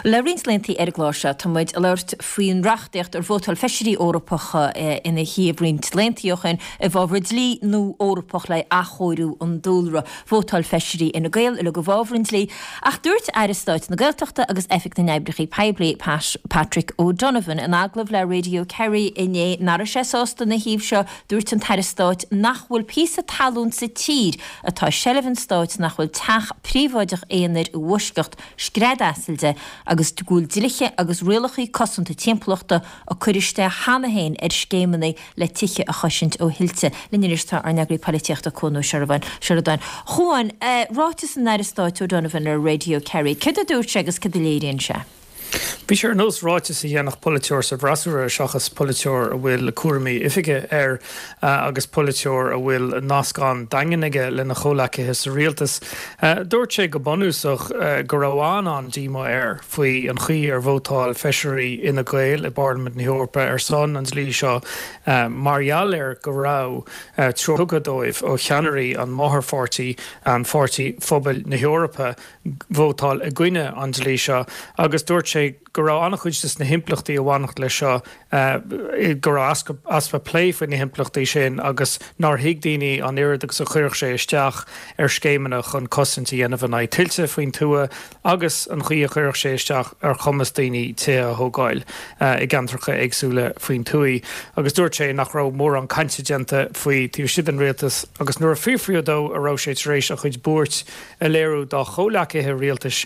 Le roinnt laethanta ar an gclár seo tá muid ag labhairt faoin reachtaíocht ar vótáil feisirí Eorpacha ina thaobh roinnt laethanta ó shin i bhfabhar dlí nua Eorpach le athchóiriú an dúlra. Vótáil feisirí Fhine Gael uilig i bhfabhar an dlí ach dúirt Aire Stáit na Gaeltachta agus Oifig na nOibreacha Poiblí, Pat Patrick O'Donovan in agallamh le Radio Kerry inné nach raibh sé sásta ina thaobh seo. Dúirt an tAire Stáit nach bhfuil píosa talún sa tír atá i seilbh an stáit nach bhfuil teach príobháideach aonair i bhfoisceacht scread asail de agus go bhfuil dlíthe agus rialacha cosanta timpeallachta á cur isteach cheana féin ar scéimeanna le tithe a chosaint ó thuilte. Linn anois tá ár n-eagraí polaitíochta Cuan Ó Seireadáin. A Chuain, ráiteas an Aire Stáit O'Donovan ar Radio Kerry, céard a dúirt sé agus céard a léiríonn sé? Bhí sé ar nós ráiteas a dhéanfadh polaiteoir sa bhfreasúra seachas polaiteoir a bhfuil cúraimí oifige air agus polaiteoir a bhfuil nasc an-daingean aige lena chomhleacaithe sa rialtas. Dúirt sé go bunúsach go raibh an-an-díomá air faoi an chaoi ar vótáil feisirí Fhine Gael i bParlaimint na hEorpa ar son an dlí seo mar gheall ar go raibh treoir tugtha dóibh ó cheannairí an mháthairpháirtí, an Pháirtí Phobail na hEorpa. vótáil i gcoinne an dlí seo agus dúirt sé go raibh an-chuid de na himpleachtaí a bhainfeadh leis seo, go raibh easpa plé faoi na himpleachtaí sin agus nár thuig daoine an oiread agus a chuirfeadh sé isteach ar scéimeanna chun cosaint a dhéanamh in aghaidh tuilte faoin tuath agus an chaoi a chuirfeadh sé isteach ar chumas daoine tithe a thógáil i gceantracha éagsúla faoin tuath. Agus dúirt sé nach raibh mórán cainte déanta faoi taobh istigh den rialtas agus nuair a fiafraíodh dó an raibh sé tar éis a chuid buairt a léiriú dá chomhleacaithe rialtais,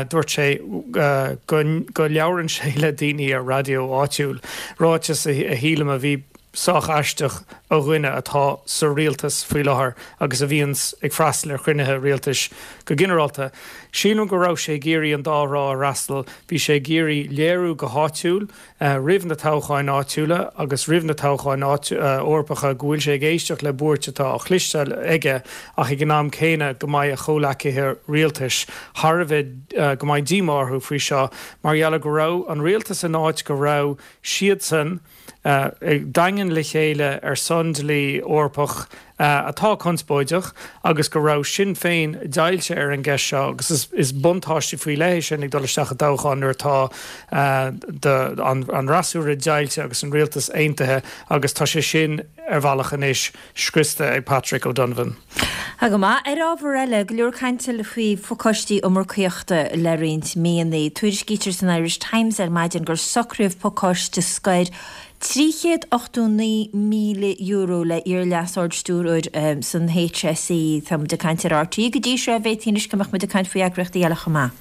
dúirt sé go labhrann sé le daoine ar raidió áitiúil, ráiteas a shílim a bhí sách aisteach ó dhuine atá sa rialtas faoi láthair agus a bhíonns ag freastal ar chruinnithe rialtais go ginearálta. Sílim go raibh sé ag iarraidh an dá thrá a fhreastal, bhí sé ag iarraidh léiriú go háitiúil, roimh na toghcháin áitiúla agus roimh na toghcháin Eorpacha go bhfuil sé ag éisteacht le buairt atá á chloisteáil aige ach ag an am céanna go mbeidh a chomhleacaithe rialtais thar a bheith, go mbeidh díomá orthu faoi seo mar gheall ar go raibh an rialtas in áit go raibh siadsan daingean le chéile ar son dlí Eorpach atá conspóideach agus go raibh Sinn Féin deighilte ar an gceist seo agus is buntáiste faoi leith é sin ag dul isteach i dtoghchán nuair atá an fhreasúra deighilte agus an rialtas aontaithe agus tá sé sin ar bhealach anois scriosta ag Patrick O'Donovan. Tá go maith. Ar ábhar eile, go leor cainte faoi phacáistí iomarcaíochta le roinnt míonna. Tuairiscítear san Irish Times ar maidin gur socraíodh pacáiste scoir €389,000 le iar-Leas-Ard-Stiúrthóir san HSE. Tá muid ag caint ar RTÉ go dtí seo, b'fhéadfaí anois go mbeadh muid ag caint faoi eagraíochtaí eile chomh maith.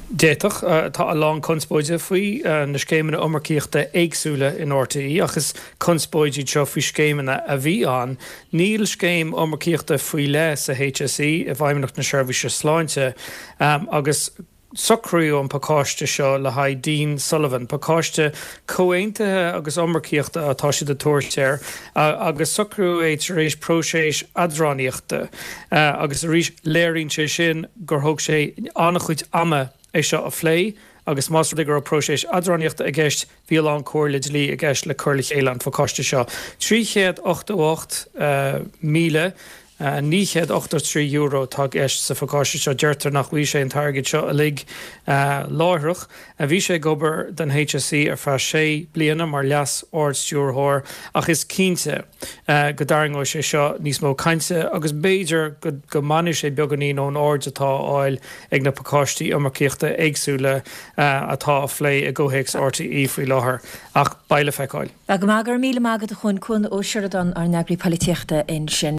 D'fhéadfadh. Tá a lán conspóide faoi na scéimeanna iomarcaíochta éagsúla in RTÉ ach is conspóid iad seo faoi scéimeanna a bhí ann. Níl scéim iomarcaíochta faoi leith sa HSE, i bhFeidhmeannacht na Seirbhíse Sláinte, agus Socraíodh an pacáiste seo le haghaidh Dean Sullivan, pacáiste comhaontaithe agus iomarcaíochta atá siad ag tabhairt air, agus socraíodh é tar éis próiseas eadránaíochta. Agus arís, léiríonn sé sin gur thóg sé an-chuid ama é seo a phlé agus más rud é go raibh próiseas eadránaíochta i gceist, bhí a lán comhairle dlí i gceist le cur le chéile an phacáiste seo. €388,000 €983 atá i gceist sa phacáiste seo. Deirtear nach bhfaighidh sé an t-airgead seo uilig láithreach. Bhí sé ag obair don HSE ar feadh sé bliana mar Leas-Ard-Stiúrthóir ach is cinnte go dtarraingeoidh sé seo níos mó cainte agus b'fhéidir go mbainfidh sé beagáinín ón aird atá á fháil ag na pacáistí iomarcaíochta éagsúla atá á phlé i gcomhthéacs RTÉ faoi láthair. Ach beidh le feiceáil. Go maith, go raibh míle maith agat a Chuain, Cuan Ó Seireadáin, ár n-eagraí polaitíochta ansin.